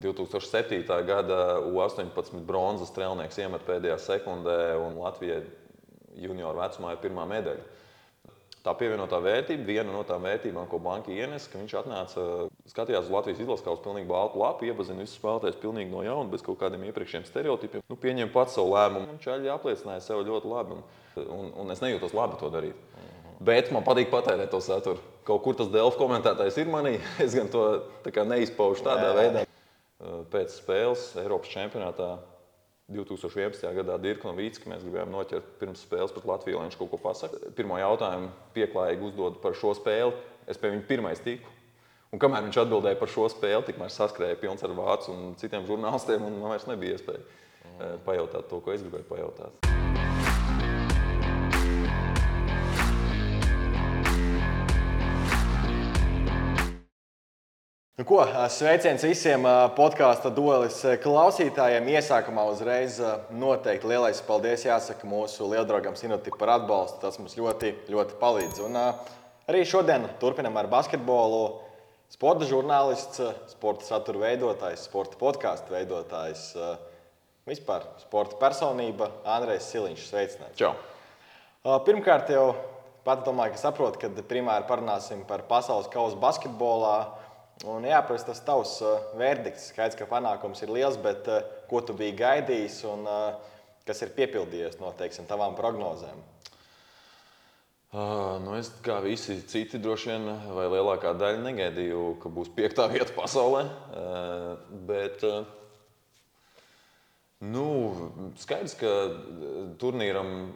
2007. gada U18 bronzas strēlnieks iemet pēdējā sekundē, un Latvijai junioru vecumā ir pirmā medaļa. Tā pievienotā vērtība, viena no tām vērtībām, ko banka ienesa, ka viņš atnāca, skatījās uz Latvijas izlases kausu pilnīgi baltu lapu, iepazina visus spēlētājus pilnīgi no jauna, bez kaut kādiem iepriekšējiem stereotipiem. Pieņēma pats savu lēmumu, un Čaļi apliecināja sev ļoti labi, un es nejūtos labi to darīt. Bet man patīk patērēt to saturu. Kaut kur tas Delfi komentētājs ir manī, es gan to neizpaužu tādā veidā. Pēc spēles Eiropas čempionātā 2011. gadā Dirka Novīcka mēs gribējām noķert pirms spēles pret Latviju, lai viņš kaut ko pasaka. Pirmo jautājumu pieklājīgi uzdod par šo spēli. Es pie viņa pirmais tiku. Un kamēr viņš atbildēja par šo spēli, tikmēr saskrēja pilns ar vācu un citiem žurnālistiem, un man vairs nebija iespēja pajautāt to, ko es gribēju pajautāt. Nu ko, sveiciens visiem podkāsta duelis klausītājiem. Iesākumā uzreiz noteikti lielais paldies jāsaka mūsu lieldraugam Sinoti par atbalstu. Tas mums ļoti, ļoti palīdz. Un arī šodien turpinam ar basketbolu. Sporta žurnālists, sporta satura veidotājs, sporta podkāstu veidotājs, vispār sporta personība Andrejs Siliņš. Sveicināts. Čau! Pirmkārt jau pats domāju, ka saprotu, ka primāri parunāsim par pasaules kausu basketbolā. Un jāprast tas tavs verdikts. Skaidrs, ka panākums ir liels, bet ko tu biji gaidījis un kas ir piepildījies no, teiksim, tavām prognozēm? Es kā visi citi droši vien, vai lielākā daļa negaidīju, ka būs 5. vieta pasaulē. Bet skaidrs, ka turnīram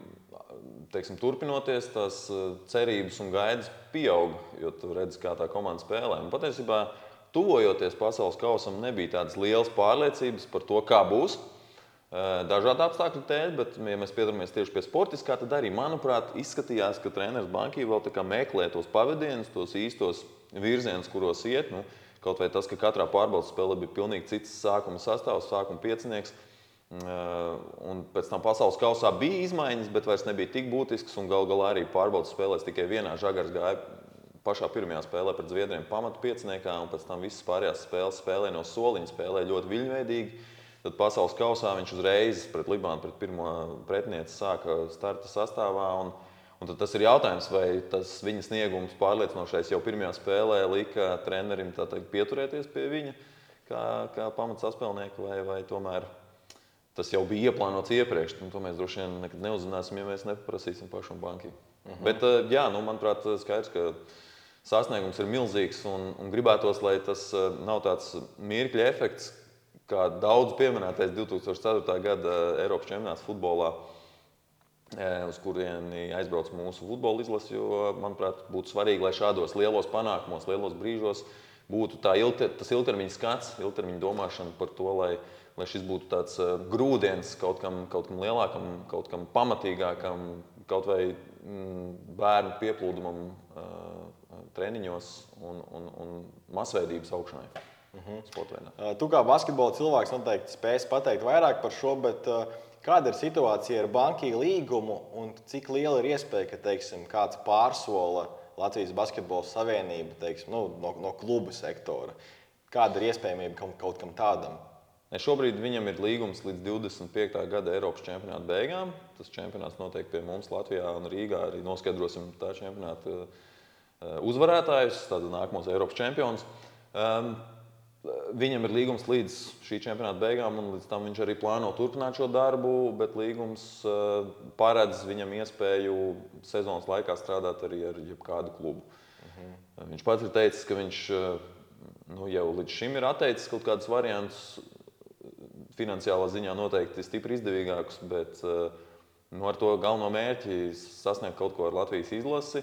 turpinoties, tās cerības un gaidas pieaug, jo tu redzi, kā tā komanda spēlē. Un patiesībā, tuvojoties pasaules kausam, nebija tādas lielas pārliecības par to, kā būs. Dažādu apstākļu dēļ, bet, ja mēs piedaramies tieši pie sportiskā, tad arī, manuprāt, izskatījās, ka treneris Bankī vēl tā kā meklē tos pavadienus, tos īstos virzienus, kuros iet. Kaut vai tas, ka katrā pārbaudas spēlē bija pilnīgi cits sākuma sastāvs, sākuma piecinieks. Un pēc tam pasaules kausā bija izmaiņas, bet vairs nebija tik būtisks. Un gal galā arī pārbaudas spēlēs tikai vienā. Žagars gāja pašā pirmajā spēlē pret Zviedriem pamatu pieciniekā, un pēc tam visas pārējās spēles spēlē no soliņa, spēlē ļoti viļņveidīgi. Tad pasaules kausā viņš uzreiz pret Libānu, pret pirmo pretinieci sāka starta sastāvā. Un tad tas ir jautājums, vai tas viņa sniegums pārliecinošais jau pirmajā spēlē lika trenerim pieturēties pie viņa kā pamatsaspēlnieku, vai tomēr tas jau bija ieplānots iepriekš. To mēs droši vien nekad neuzzināsim, ja mēs nepaprasīsim pašam Bankī. Bet, manuprāt, skaidrs, ka sasniegums ir milzīgs un gribētos, lai tas nav tāds mirkļa efekts, kā daudz pieminētais 2004. gada Eiropas čempionāts futbolā, uz kurieni aizbrauc mūsu futbola izlase, jo, manuprāt, būtu svarīgi, lai šādos lielos panākumos, lielos brīžos būtu tas ilgtermiņa skats, ilgtermiņa domāšana par to, lai šis būtu tāds grūdienis kaut kam lielākam, kaut kam pamatīgākam, kaut vai bērnu pieplūdumam treniņos un masveidības augšanai. Tu kā basketbola cilvēks noteikti spēsi pateikt vairāk par šo, bet kāda ir situācija ar Bankī līgumu un cik liela ir iespēja, ka, teiksim, kāds pārsola Latvijas basketbola savienība, no kluba sektora? Kāda ir iespējamība kaut kam tādam? Šobrīd viņam ir līgums līdz 25. gada Eiropas čempionāta beigām. Tas čempionāts notiek pie mums Latvijā un Rīgā. Arī noskaidrosim tā čempionāta uzvarētājus, tātad nākamos Eiropas čempionus. Viņam ir līgums līdz šī čempionāta beigām, un līdz tam viņš arī plāno turpināt šo darbu, bet līgums paredz viņam iespēju sezonas laikā strādāt arī ar jebkādu klubu. Viņš pats ir teicis, ka viņš jau līdz šim ir atteicis kaut kādus variantus, finansiālā ziņā noteikti stipri izdevīgākus, bet ar to galveno mērķi sasniegt kaut ko ar Latvijas izlasi.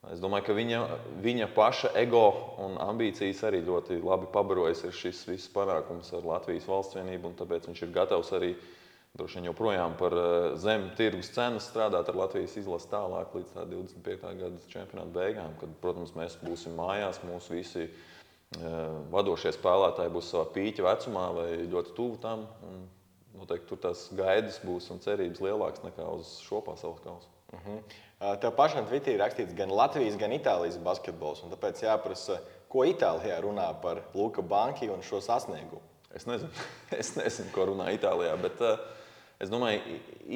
Es domāju, ka viņa paša ego un ambīcijas arī ļoti labi pabarojas ar šis viss panākums ar Latvijas valsts vienību, un tāpēc viņš ir gatavs arī droši vien joprojām par zem tirgus cenas strādāt ar Latvijas izlasi tālāk līdz 25. gada čempionāta beigām, kad, protams, mēs būsim mājās, mūsu visi vadošie spēlētāji būs savā pīķa vecumā vai ļoti tuvu tam, un noteikti tur tās gaidas būs un cerības lielākas nekā uz šo pasaules kausu. Tev pašam Twitterī rakstīts gan Latvijas, gan Itālijas basketbols, un tāpēc jāprasa, ko Itālijā runā par Luka Bankī un šo sasniegumu? Es nezinu, es nezinu, ko runā Itālijā, bet es domāju,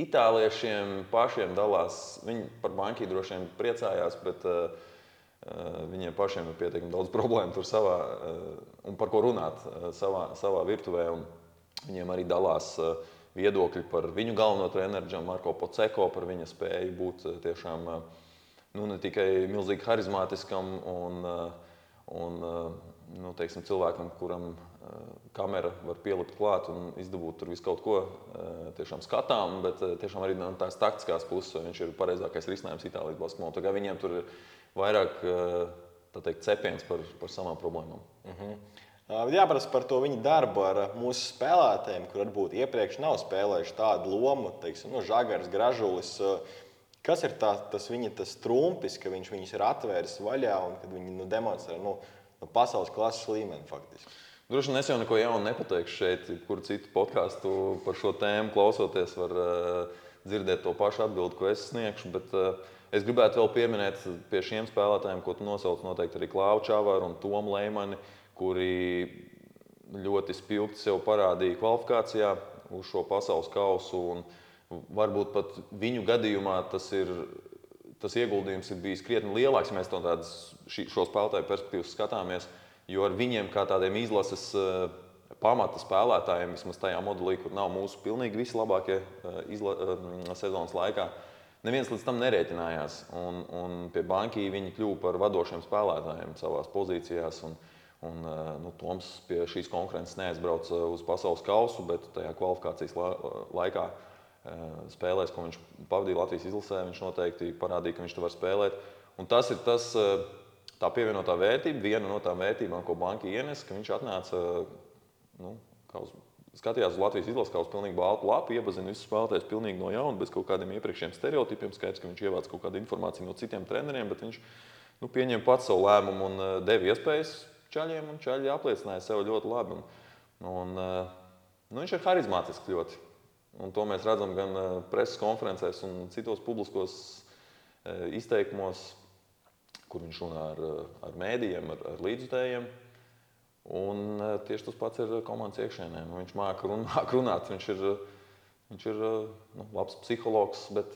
itāliešiem pašiem dalās. Viņi par banku droši vien priecājās, bet viņiem pašiem ir pietiekami daudz problēmu tur savā, un par ko runāt savā virtuvē. Un viņiem arī dalās viedokļi par viņu galveno treneru, Marko Poceko, par viņa spēju būt tiešām ne tikai milzīgi harizmātiskam un teiksim, cilvēkam, kuram kamera var pielikt klāt un izdabūt tur visu kaut ko tiešām skatām, bet tiešām arī no tās taktiskās puses viņš ir pareizākais risinājums Itālijas basketbolā. Tā kā viņiem tur ir vairāk cepiens par savām problēmām. Jāprasa par to viņa darbu ar mūsu spēlētājiem, kur varbūt iepriekš nav spēlējuši tādu lomu, teiksim, Žagars, Gražulis. Kas ir tas viņa trumpis, ka viņš viņus ir atvēris vaļā un kad viņi demonstrē pasaules klases līmeni faktiski? Droši vien es jau neko jaunu nepateikšu šeit, kur citu podkāstu par šo tēmu klausoties var dzirdēt to pašu atbildi, ko es sniegšu, bet es gribētu vēl pieminēt pie šiem spēlētājiem, ko tu nosauc noteikti arī Klāvu Čavaru un Tomu Leimani, kuri ļoti spilgti sev parādīja kvalifikācijā uz šo pasaules kausu, un varbūt pat viņu gadījumā tas ieguldījums ir bijis krietni lielāks, ja mēs no tādas šo spēlētāju perspektīvas skatāmies. Jo ar viņiem, kā tādiem izlases pamata spēlētājiem, vismaz tajā modelī, kur nav mūsu pilnīgi visi labākie sezonas laikā, neviens līdz tam nerēķinājās. Un pie Banki viņi kļuva par vadošiem spēlētājiem savās pozīcijās. Toms pie šīs konkurences neaizbrauca uz pasaules kausu, bet tajā kvalifikācijas laikā spēlēs, ko viņš pavadīja Latvijas izlasē, viņš noteikti parādīja, ka viņš to var spēlēt. Un tas ir tā pievienotā vērtība, viena no tām vērtībām, ko Banki ienes, ka viņš atnāca, skatījās uz Latvijas izlasi kā uz pilnīgi baltu lapu, iepazina visus spēlētājus pilnīgi no jauna, bez kaut kādiem iepriekšējiem stereotipiem. Skaidrs, ka viņš ievāc kaut kādu informāciju no citiem treneriem, bet viņš pieņēma pats savu lēmumu un deva iespējas čaļiem, un čaļi apliecināja sev ļoti labi. Viņš ir harizmātisks ļoti. Un to mēs redzam gan preses konferencēs un citos publiskos izteikumos, kur viņš runā ar mēdījiem, ar līdzjutējiem. Un tieši tas pats ir komandas iekšēnē. Viņš māca runāt, viņš ir labs psihologs, bet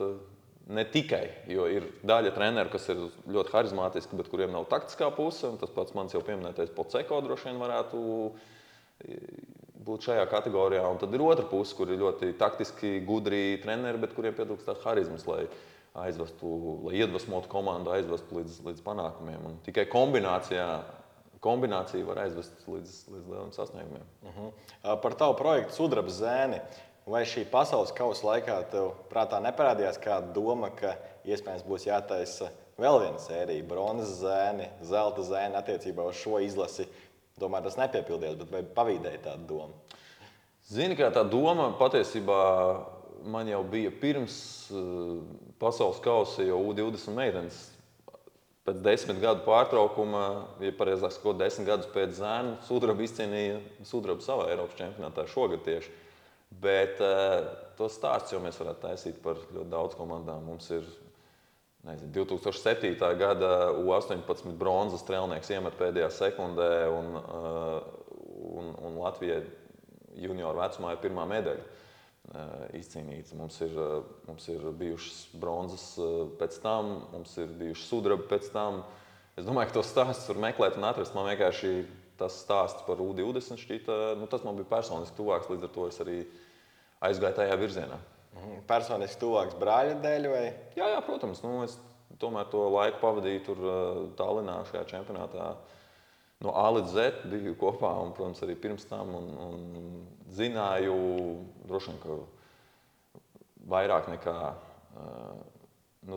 ne tikai. Jo ir daļa treneru, kas ir ļoti harizmātiski, bet kuriem nav taktiskā puse. Tas pats mans jau pieminētais Poceko droši vien varētu būt šajā kategorijā. Un tad ir otra puse, kur ir ļoti taktiski gudri treneri, bet kuriem pietrūkst tās harizmas, lai iedvesmotu komandu, aizvestu līdz panākumiem. Un tikai kombinācija var aizvest līdz lieliem sasniegumiem. Par tavu projektu Sudraba zēni. Vai šī pasaules kausa laikā tev prātā neparādījās kāda doma, ka iespējams būs jātaisa vēl viena sērija, bronzas zēni, zelta zēni attiecībā uz šo izlasi? Domāju, tas nepiepildījās, bet vai pavīdēja tāda doma? Zini, kā tā doma patiesībā man jau bija pirms pasaules kausa, jau U20 meitenes. Pēc 10 gadu pārtraukuma, ja pareizāk sakot, 10 gadus pēc zēnu, Sudraba izcīnīja sudrabu savā Eiropas čempionātā šogad tieši. Bet to stāsts jau mēs varētu taisīt par ļoti daudz komandām. Mums ir 2007. Gada U18 bronzas strēlnieks iemet pēdējā sekundē, un Latvijai junioru vecumā ir pirmā medaļa izcīnīts. Mums ir bijušas bronzas pēc tam, mums ir bijušas sudraba pēc tam. Es domāju, ka tos stāstus var meklēt un atrast. Man vienkārši tas stāsts par U20 šķita, tas man bija personiski tuvāks, līdz ar to es arī aizgāju tajā virzienā. Personiski tuvāks brāļa dēļ vai? Jā, protams. Es tomēr to laiku pavadīju tur Tallinā šajā čempionātā. No A līdz Z biju kopā un, protams, arī pirms tam un zināju droši vien, ka vairāk nekā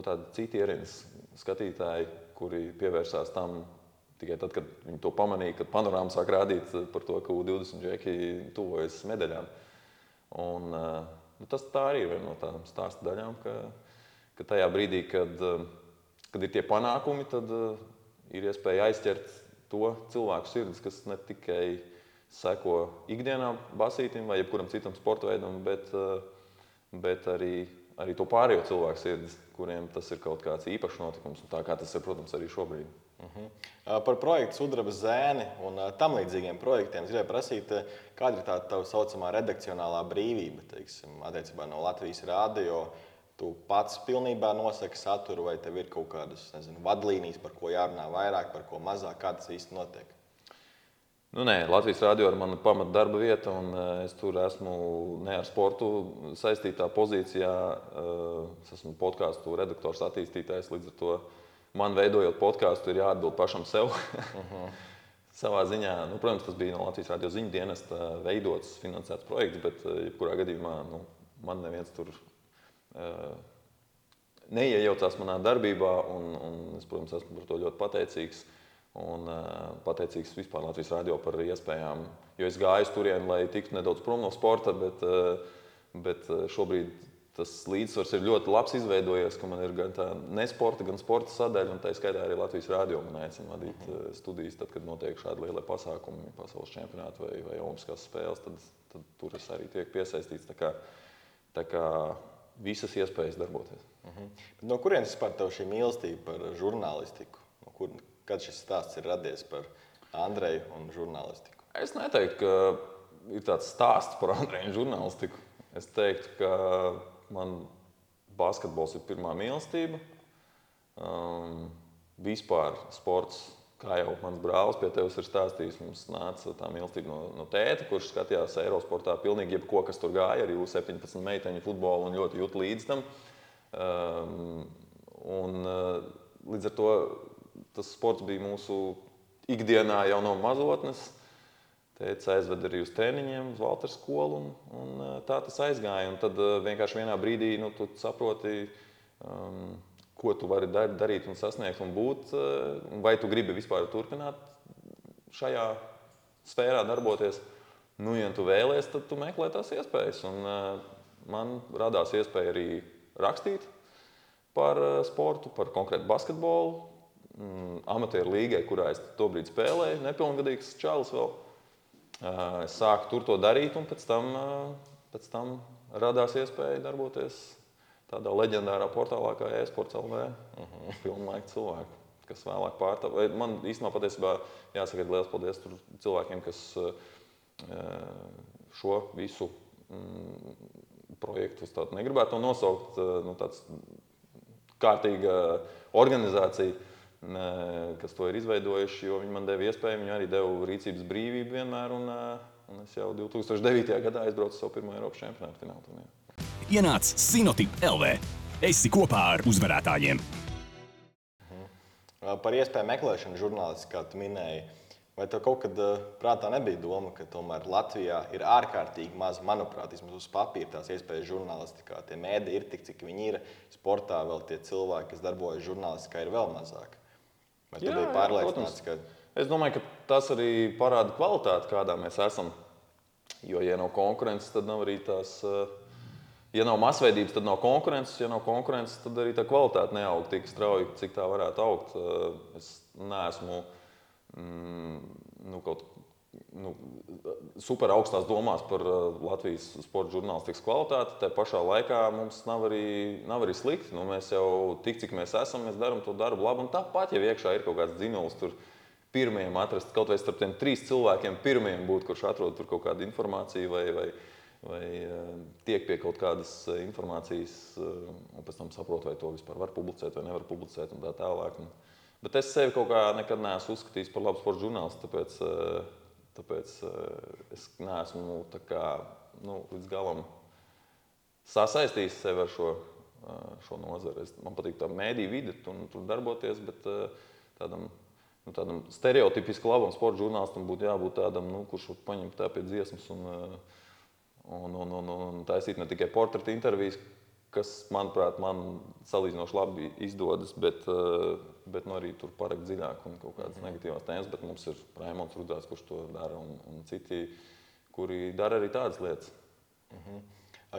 tādi citi ierīnas skatītāji, kuri pievērsās tam tikai tad, kad viņi to pamanīja, kad panorāma sāk rādīt par to, ka U20 džeki tuvojas medaļām. Un tas tā arī ir viena no tādām stāsta daļām, ka tajā brīdī, kad ir tie panākumi, tad ir iespēja aizķert to cilvēku sirdis, kas ne tikai seko ikdienā basītim vai jebkuram citam sporta veidam, bet arī to pārējo cilvēku sirdis, kuriem tas ir kaut kāds īpašs notikums. Un tā kā tas ir, protams, arī šobrīd. Par projektu Sudraba zēni un tam līdzīgiem projektiem es gribēju prasīt, kāda ir tā tā saucamā redakcionālā brīvība, teiksim, attiecībā no Latvijas Rādio. Tu pats pilnībā nosaki saturu, vai tev ir kaut kādas, vadlīnijas, par ko jārunā vairāk, par ko mazāk, kā tas īsti notiek? Nē, Latvijas Rādio ir mana pamata darba vieta, un es tur esmu ne ar sportu saistītā pozīcijā. Es esmu podkāstu redaktors, attīstītājs, līdz ar to man veidojot podkāstu ir jāatbild pašam sev. Savā ziņā, protams, tas bija no Latvijas Rādio ziņu dienesta veidots, finansēts projekts, bet jebkurā gadījumā man neviens tur neiejaucās manā darbībā, un es, protams, esmu par to ļoti pateicīgs. Un pateicīgs vispār Latvijas Rādio par iespējām, jo es gāju uz turieni, lai tiktu nedaudz prom no sporta, bet šobrīd tas līdzsvars ir ļoti labs izveidojies, ka man ir gan tā nesporta, gan sporta sadaļa, un tā skaitā arī Latvijas Rādio man aicina vadīt studijas, tad, kad notiek šādi lielie pasākumi, pasaules čempionāti vai olimpiskās spēles, tad tur es arī tiek piesaistīts, tā kā visas iespējas darboties. No kurienes vispār tev šī mīlestība par žurnālistiku? Kad šis stāsts ir radies par Andreju un žurnālistiku? Es neteiktu, ka ir tāds stāsts par Andreju un žurnālistiku. Es teiktu, ka man basketbols ir pirmā mīlestība. Vispār sports, kā jau mans brālis pie tevis ir stāstījis, mums nāca tā mīlestība no tēta, kurš skatījās Eirosportā pilnīgi jebko, kas tur gāja, arī U17 meiteņu futbolu un ļoti jūt līdz tam. Līdz ar to tas sports bija mūsu ikdienā jau no mazotnes. Tētis aizved arī uz treniņiem, uz Valtera skolu, un tā tas aizgāja. Un tad vienkārši vienā brīdī tu saproti, ko tu vari darīt un sasniegt un būt. Vai tu gribi vispār turpināt šajā sfērā darboties. Ja tu vēlies, tad tu meklē tās iespējas. Un man radās iespēja arī rakstīt par sportu, par konkrētu basketbolu. Amatieru līgai, kurā es tobrīd spēlēju, nepilngadīgs čalis vēl. Es sāku tur to darīt, un pēc tam radās iespēja darboties tādā leģendārā portālā kā eSports.lv. Pilnlaika cilvēku, kas vēlāk pārtāv. Man īstenībā patiesībā jāsaka liels paldies tur cilvēkiem, kas šo visu projektu, es tādu negribētu to nosaukt, tāds kārtīga organizācija, kas to ir izveidojuši, jo viņi man deva iespēju, viņi arī deva rīcības brīvību vienmēr, un es jau 2009. Gadā aizbraucu savu pirmo Eiropas čempionātu finālu turnīru. Ienāc Sinotip LV. Esi kopā ar uzvarētājiem. Par iespēju meklēšanu žurnālisti, kā tu minēji, vai tev kaut kad prātā nebija doma, ka tomēr Latvijā ir ārkārtīgi maz, manuprāt, vismaz uz papīra tās iespējas žurnālistikā. Tie mēdī ir tik, cik viņi ir. Sportā vēl tie cilvēki, kas darbojas žurnālistikā, ir vēl mazāk. Vai tu biji pārliecināts, ka... Es domāju, ka tas arī parāda kvalitāti, kādā mēs esam. Jo, ja nav konkurences, tad nav arī tās... Ja nav masveidības, tad nav konkurences. Ja nav konkurences, tad arī tā kvalitāte neaug tik strauji, cik tā varētu augt. Es neesmu super augstās domās par Latvijas sporta žurnālistikas kvalitāti. Tā pašā laikā mums nav arī slikti. Mēs jau tik, cik mēs esam, mēs darām to darbu labi. Un tāpat, ja iekšā ir kaut kāds dzinulis, tur pirmajiem atrast, kaut vai starp tiem 3 cilvēkiem pirmajiem būt, kurš atrod tur kaut kādu informāciju vai tiek pie kaut kādas informācijas, un pēc tam saprot, vai to vispār var publicēt vai nevar publicēt un tā tālāk. Bet es sevi kaut kā nekad neesmu uzskatījis par labu sporta žurnālistu, tāpēc es neesmu līdz galam sasaistījis sevi ar šo nozari. Man patīk tā mēdīju vide, tur darboties, bet tādam stereotipiski labam sporta žurnālistam būtu jābūt tādam, kurš var paņemt tā pie dziesmas un taisīt ne tikai portreta intervijas, kas, manuprāt, man salīdzinoši labi izdodas, bet arī tur parakt dziļāk un kaut kādas negatīvās tēmas, bet mums ir Raimonds Rudzāts, kurš to dara, un citi, kuri dara arī tādas lietas.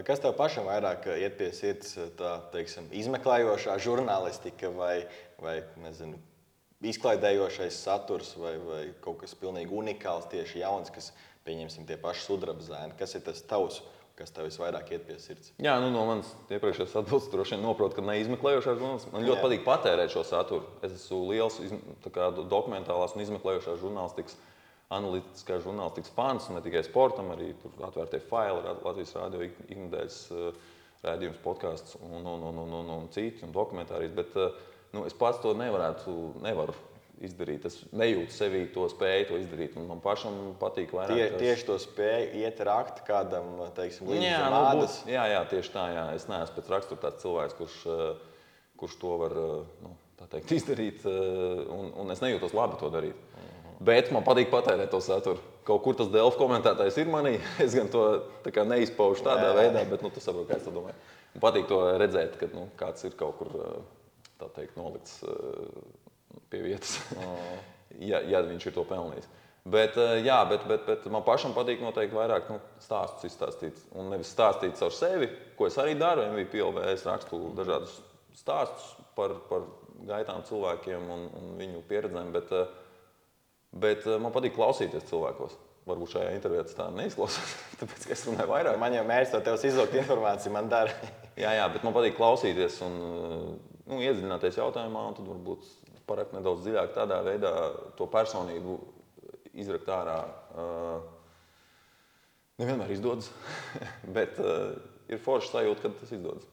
Kas tev pašam vairāk iet pie sirds, tā, teiksim, izmeklējošā žurnālistika vai izklaidējošais saturs vai kaut kas pilnīgi unikāls, tieši jauns, kas pieņemsim tie paši sudraba zēni. Kas ir tas tavs, kas tev visvairāk iet pie sirds? Jā, no manas iepriekšējās atbildes droši vien noprotu, ka neizmeklējošās žurnālistikas. Man ļoti patīk patērēt šo saturu. Es esmu liels dokumentālās un izmeklējošās žurnālistikas, analītiskās žurnālistikas fans, un ne tikai sportam, arī tur atvērtie faili, Latvijas Rādio iknedēļas raidījums, podcasts un citi, un dokumentārijas. Bet es pats to nevaru izdarīt. Es nejūtu sevī to spēju to izdarīt. Man pašam patīk vairāk. Tieši to spēju iet rakt kādam, teiksim, līdz ādas. Jā, tieši tā. Jā. Es neesmu pēc rakstura tāds cilvēks, kurš to var izdarīt. Un es nejūtos labi to darīt. Bet man patīk patērēt to saturu. Kaut kur tas Delfi komentētājs ir manī. Es gan to neizpaužu tādā veidā, bet tu saproti, kā es to domāju. Man patīk to redzēt, ka kāds ir kaut kur nolikts pie vietas, ja viņš ir to pelnījis. Bet man pašam patīk noteikti vairāk stāstus izstāstīt. Un nevis stāstīt caur sevi, ko es arī daru. MVP LV es rakstu dažādus stāstus par gaitām cilvēkiem un viņu pieredzēm. Bet man patīk klausīties cilvēkos. Varbūt šajā intervijā tas tā neizklausās, tāpēc, ka es runāju vairāk. Man jau mērķis to tev izlūgt informāciju, man dara. jā, bet man patīk klausīties un iedziļināties jautājumā, un tad varbūt parakt nedaudz dziļāk tādā veidā to personību izrakt ārā. Nevienmēr izdodas, bet ir forša sajūta, kad tas izdodas.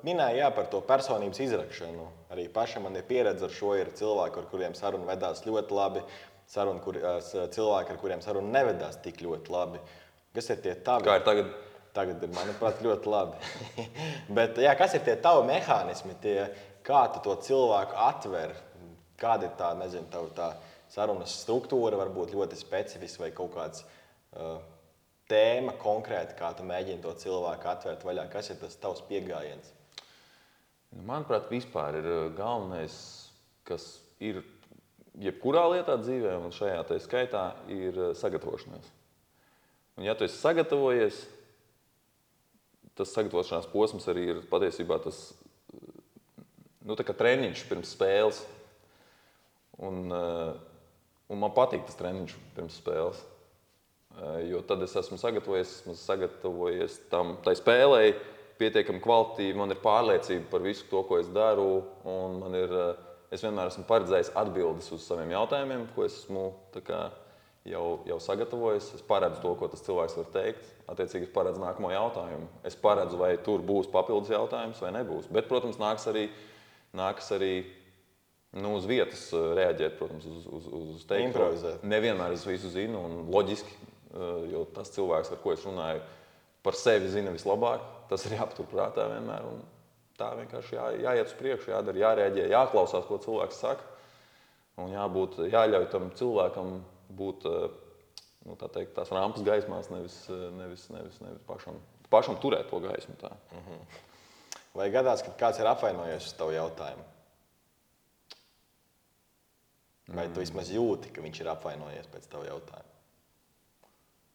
Minēja par to personības izrakšanu. Arī pašam man ir pieredze ar šo. Ir cilvēki, ar kuriem saruna vedās ļoti labi, cilvēki, ar kuriem saruna nevedās tik ļoti labi. Kas ir tie tavi? Kā ir tagad? Tagad ir, manuprāt, ļoti labi. Bet, kas ir tie tavi mehānismi, kā tu to cilvēku atver? Kāda ir tā sarunas struktūra, varbūt ļoti specifiska vai kaut kāds tēma konkrēti, kā tu mēģini to cilvēku atvērt vaļā? Kas ir tas tavs pieejams? Manuprāt, vispār ir galvenais, kas ir jebkurā lietā dzīvē, un šajā tā skaitā ir sagatavošanās. Un, ja tu esi sagatavojies, tas sagatavošanās posms arī ir patiesībā tas treniņš pirms spēles. Un man patīk tas treniņš pirms spēles. Jo tad es esmu sagatavojies tai spēlei pietiekami kvalitīvi, man ir pārliecība par visu to, ko es daru, un es vienmēr esmu paredzējis atbildes uz saviem jautājumiem, ko es esmu jau sagatavojis. Es paredzu to, ko tas cilvēks var teikt, attiecīgi es paredzu nākamo jautājumu. Es paredzu, vai tur būs papildus jautājums vai nebūs. Bet, protams, nākas arī uz vietas reaģēt, protams, uz teikto. Improvizēt. Nevienmēr es visu zinu un loģiski, jo tas cilvēks, ar ko es runāju, par sevi zina vislabāk. Tas ir jāpatur prātā vienmēr. Un tā vienkārši jāiet uz priekšu, jādara, jārēģē, jāklausās, ko cilvēks saka. Un jāļauj tam cilvēkam būt tās rampas gaismās, nevis pašam turēt to gaismu. Tā. Vai gadās, kad kāds ir apvainojies uz tavu jautājumu? Vai tu vismaz jūti, ka viņš ir apvainojies pēc tavu jautājumu?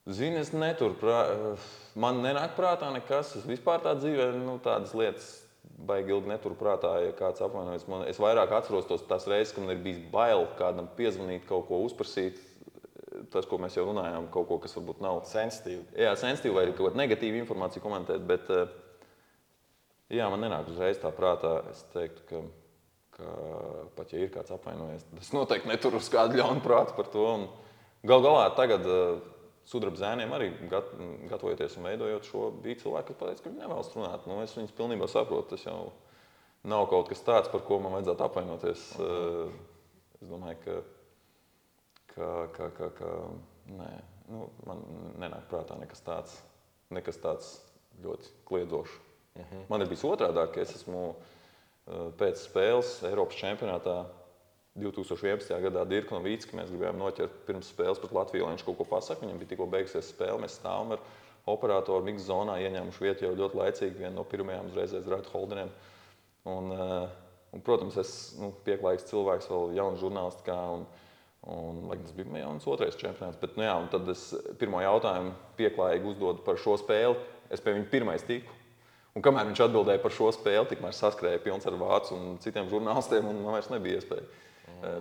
Zini, es man nenāk prātā nekas. Es vispār tā dzīvē tādas lietas baigi ilgi neturu prātā, ja kāds apvainojas. Es vairāk atceros tās reizes, kad man ir bijis bail kādam piezvanīt, kaut ko uzprasīt. Tas, ko mēs jau runājām, kaut ko, kas varbūt nav sensitīvi. Jā, sensitīvi vai kaut kāda negatīva informācija komentēt, bet man nenāk uzreiz tā prātā. Es teiktu, ka pat ja ir kāds apvainojies, tad es noteikti neturu uz kādu ļaunu prātu par to. Gal galā tagad sudraba zēniem arī gatavojoties un veidojot šo, bija cilvēki, kas pateica, ka viņi nevēlas runāt. Es viņus pilnībā saprotu. Tas jau nav kaut kas tāds, par ko man vajadzētu apvainoties. Es domāju, ka nē, man nenāk prātā nekas tāds ļoti kliedzošs. Man ir bijis otrādāk, ka es esmu pēc spēles Eiropas čempionātā 2011. gadā Dirku Novīcki mēs gribējām noķert pirms spēles pret Latviju, lai viņš kaut ko pasaka. Viņam bija tikko beigusies spēle, mēs stāvam ar operatoru miksa zonā, ieņēmuši vietu jau ļoti laicīgi, viena no pirmajām uzreizēs Raitu Holdeniem. Un, protams, es pieklājīgs cilvēks, vēl jauns žurnālistikā, un tas bija jauns otrais čempionāts. Bet, un tad es pirmo jautājumu pieklājīgi uzdodu par šo spēli, es pie viņa pirmais tiku. Un kamēr viņš atbildēja par šo spēli, tikmēr saskrēja pilns ar vācu un citiem žurnālistiem, un man vairs nebija iespēja.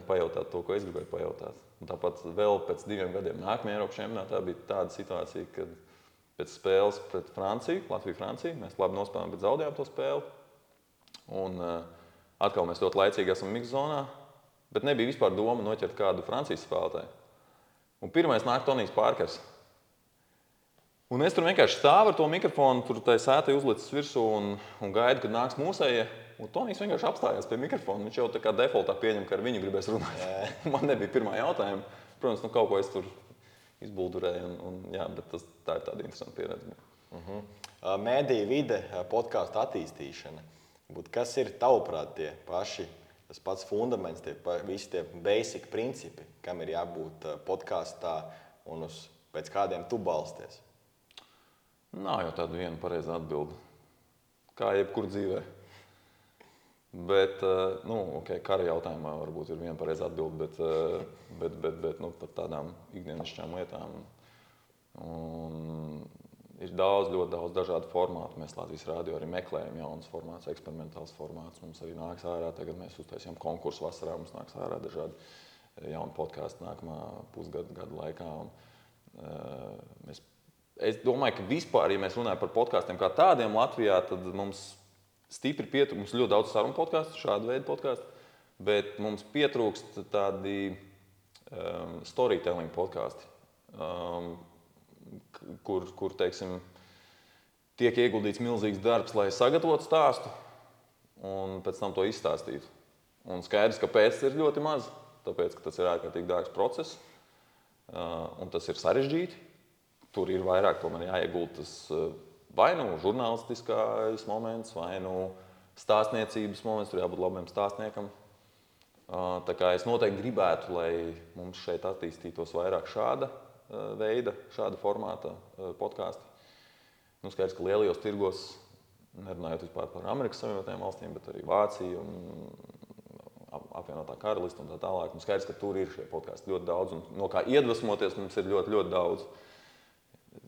pajautāt to, ko es gribēju pajautāt. Un tāpat vēl pēc 2 gadiem nākamajā Eiropas čempionātā bija tāda situācija, kad pēc spēles pret Franciju, Latviju-Franciju, mēs labi nospēlējām, bet zaudējām to spēli. Un atkal mēs ļoti laicīgi esam mikzonā, bet nebija vispār doma noķert kādu Francijas spēlētāju. Un pirmais nāk Tonijs Pārkers. Un es tur vienkārši stāvu ar to mikrofonu, tur tai sētai uzlicis virsū un gaidu, kad nāks mūsējie. Un Tonijs vienkārši apstājās pie mikrofona. Viņš jau tā kā defaultā pieņem, ka ar viņu gribēs runāt. Man nebija pirmā jautājuma. Protams, kaut ko es tur izbuldurēju. Bet tā ir tāda interesanta pieredze. Mēdīju vide, podkāstu attīstīšana. Kas ir tavuprāt tie paši, tas pats fundaments, visi tie basic principi, kam ir jābūt podkāstā un pēc kādiem tu balsties? Nav jau tāda viena pareiza atbilde. Kā jebkur dzīvē. Bet, kara jautājumā varbūt ir viena pareiza atbilde, bet par tādām ikdienišķām lietām. Un ir ļoti daudz dažādu formātu. Mēs Latvijas radio arī meklējam jaunas formātus, eksperimentāls formāts. Mums arī nāks ārā, tagad mēs uztaisījām konkursu vasarā, mums nāks ārā dažādi jauni podkāsti nākamā pusgada laikā. Es domāju, ka vispār, ja mēs runājam par podkāstiem kā tādiem Latvijā, tad mums stipri pietrūkst, mums ļoti daudz sarunu podkāstu, šādu veidu podkāstu, bet mums pietrūkst tādi storytelling podkāsti, kur teiksim, tiek ieguldīts milzīgs darbs, lai sagatavotu stāstu un pēc tam to izstāstītu. Un skaidrs, ka pēc tas ir ļoti maz, tāpēc, ka tas ir ārkārtīgi dārgs process un tas ir sarežģīti. Tur ir vairāk, tomēr jāieguldas vai nu žurnālistiskais moments, vai nu stāstniecības moments, tur jābūt labiem stāstniekam. Tā kā es noteikti gribētu, lai mums šeit attīstītos vairāk šāda veida, šāda formāta podkāsti. Skaidrs, ka lielajos tirgos, nerunājot vispār par Amerikas Savienotajām valstīm, bet arī Vācija un apvienotā karalista un tā tālāk. Skaidrs, ka tur ir šie podkāsti ļoti daudz un no kā iedvesmoties mums ir ļoti, ļoti daudz.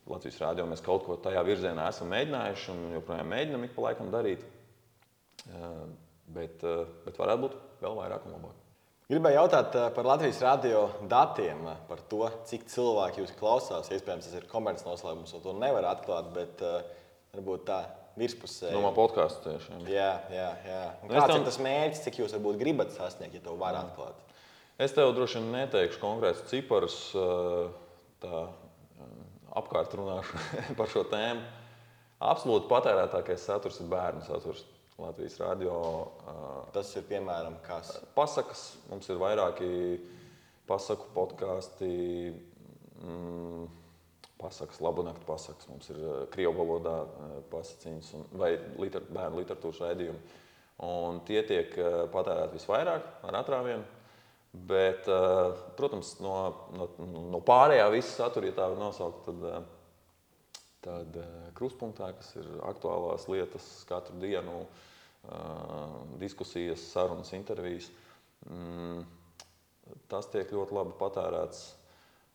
Latvijas rādio mēs kaut ko tajā virzienā esam mēģinājuši un joprojām mēģinam ik pa laikam darīt. Bet varētu būt vēl vairāk un labāk. Gribēju jautāt par Latvijas radio datiem, par to, cik cilvēki jūs klausās. Iespējams, tas ir komercnoslēpums, un to nevar atklāt, bet varbūt tā virspusē. Domā podkāstu tieši. Jā. Un kāds ir tas mērķis, cik jūs varbūt gribat sasniegt, ja to var atklāt? Es tev droši vien neteikšu konkrētus ciparus, tā apkārt runāšu par šo tēmu. Absolūti patērētākais saturs ir bērnu saturs Latvijas radio. Tas ir piemēram kas? Pasakas. Mums ir vairāki pasaku podkāsti. Pasakas, labunaktu pasakas. Mums ir krievu valodā pasaciņas vai bērnu literatūras raidījumi. Un tie tiek patērēti visvairāk ar atrāvienu. Bet, protams, no pārējā visa satura, ja tā var nosaukt, tad krustpunktā, kas ir aktuālās lietas katru dienu, diskusijas, sarunas, intervijas, tas tiek ļoti labi patērēts.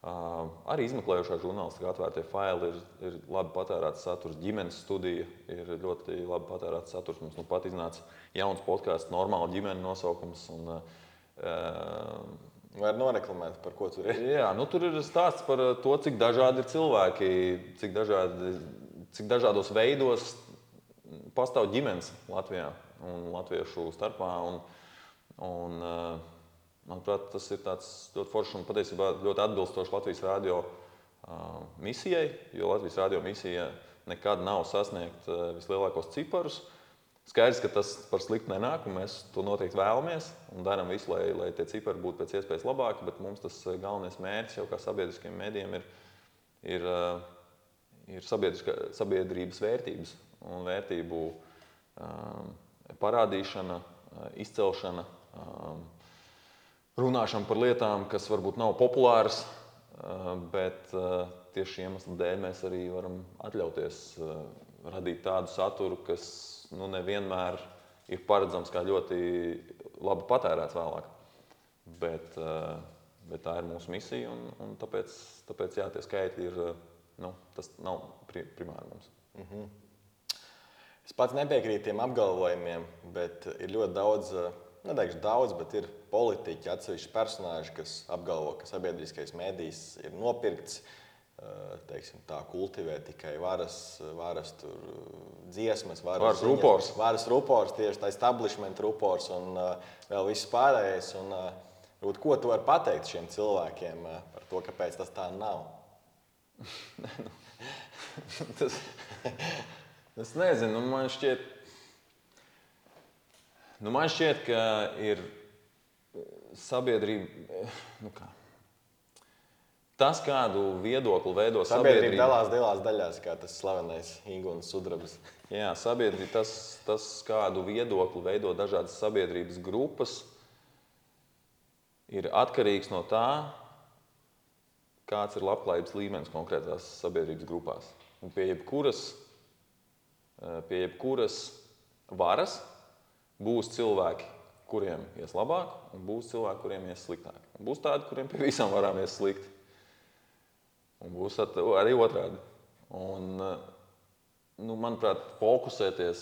Arī izmeklējošā žurnālistika atvērtie faili ir labi patērēts saturs. Ģimenes studija ir ļoti labi patērēts saturs. Mums pat iznāca jauns podkāsts, normāla ģimene nosaukums. Var noreklamēt, par ko tur ir? Jā, tur ir stāsts par to, cik dažādi ir cilvēki, cik dažādos veidos pastāv ģimenes Latvijā un latviešu starpā. Manuprāt, tas ir tāds ļoti foršs un patiesībā ļoti atbilstošs Latvijas radio misijai, jo Latvijas radio misija nekad nav sasniegt vislielākos ciparus. Skaidrs, ka tas par sliktu nenāk, un mēs to noteikti vēlamies un darām visu, lai tie cipari būtu pēc iespējas labāki, bet mums tas galvenais mērķis jau kā sabiedriskiem mēdījiem ir sabiedrības vērtības un vērtību parādīšana, izcelšana, runāšana par lietām, kas varbūt nav populāras, bet tieši iemeslu dēļ mēs arī varam atļauties radīt tādu saturu, kas nevienmēr ir paredzams kā ļoti labi patērēts vēlāk. Bet tā ir mūsu misija, un tāpēc jā, tie skaitļi ir, tas nav primāri mums. Es pats nepiekrītu tiem apgalvojumiem, bet ir ļoti daudz neteikšu daudz, bet ir politiķi, atsevišķi personāži, kas apgalvo, ka sabiedriskais mēdījis ir nopirkts, teiksim tā, kultivē tikai varas dziesmas, varas rupors. Varas rupors, tieši tā establishment rupors un vēl viss pārējais. Un, ko tu vari pateikt šiem cilvēkiem par to, kāpēc tas tā nav? Es nezinu, man šķiet, ka ir sabiedrība. Tas, kādu viedokli veido sabiedrība dalās divās daļās, kā tas slavenais Ingūnas sudrabs. Jā, sabiedrība, tas, kādu viedokli veido dažādas sabiedrības grupas, ir atkarīgs no tā, kāds ir labklājības līmenis konkrētās sabiedrības grupās. Un pie jebkuras varas būs cilvēki, kuriem ies labāk, un būs cilvēki, kuriem ies sliktāk. Un būs tādi, kuriem pie visām varām ies slikti. Un būs arī otrādi. Un, manuprāt, fokusēties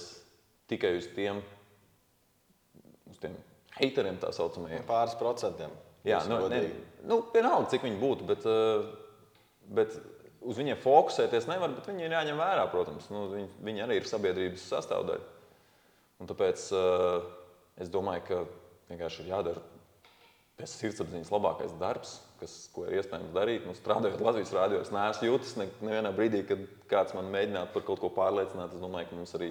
tikai uz tiem hateriem, tā saucamajiem. Pāris procentiem. Jā, vienalga, cik viņi būtu, bet uz viņiem fokusēties nevar, bet viņi ir jāņem vērā, protams. Viņi arī ir sabiedrības sastāvdaļa. Un tāpēc es domāju, ka vienkārši ir jādara pēc sirdsapziņas labākais darbs, ko ir iespējams darīt. Strādājot Latvijas rādio, es neesmu jūtis nevienā brīdī, kad kāds man mēģinātu par kaut ko pārliecināt. Es domāju, ka mums arī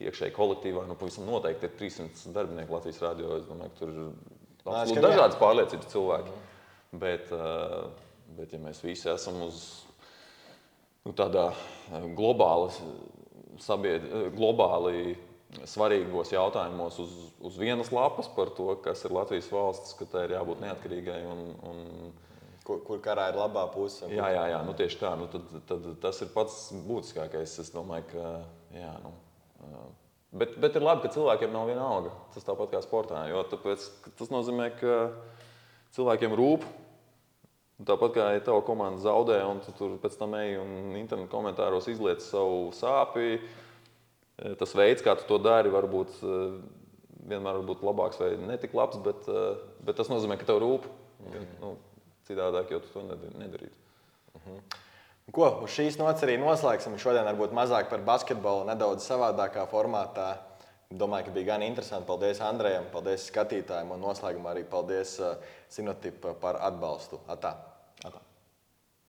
iekšēji kolektīvā pavisam noteikti ir 300 darbinieku Latvijas rādio. Es domāju, ka tur ir dažādas pārliecības cilvēki. Bet, ja mēs visi esam uz tādā globāli svarīgos jautājumos uz vienas lapas par to, kas ir Latvijas valsts, ka tai ir jābūt neatkarīgai un kur karā ir labā puse. Jā, tieši tā. Tad tas ir pats būtiskākais. Es domāju, ka bet ir labi, ka cilvēkiem nav viena alga. Tas tāpat kā sportā, jo tas nozīmē, ka cilvēkiem rūp. Tāpat kā ja tava komanda zaudē, un tu tur pēc tam ej un internetu komentāros izliec savu sāpi, tas veids, kā tu to dari, vienmēr var būt labāks vai netik labs, bet tas nozīmē, ka tev rūp. Citādāk, jo tu to nedarītu. Ko, uz šīs nots arī noslēgsim. Šodien varbūt mazāk par basketbolu, nedaudz savādākā formātā. Domāju, ka bija gan interesanti. Paldies Andrejam, paldies skatītājiem un noslēgumā arī paldies Sinotip par atbalstu. Atā!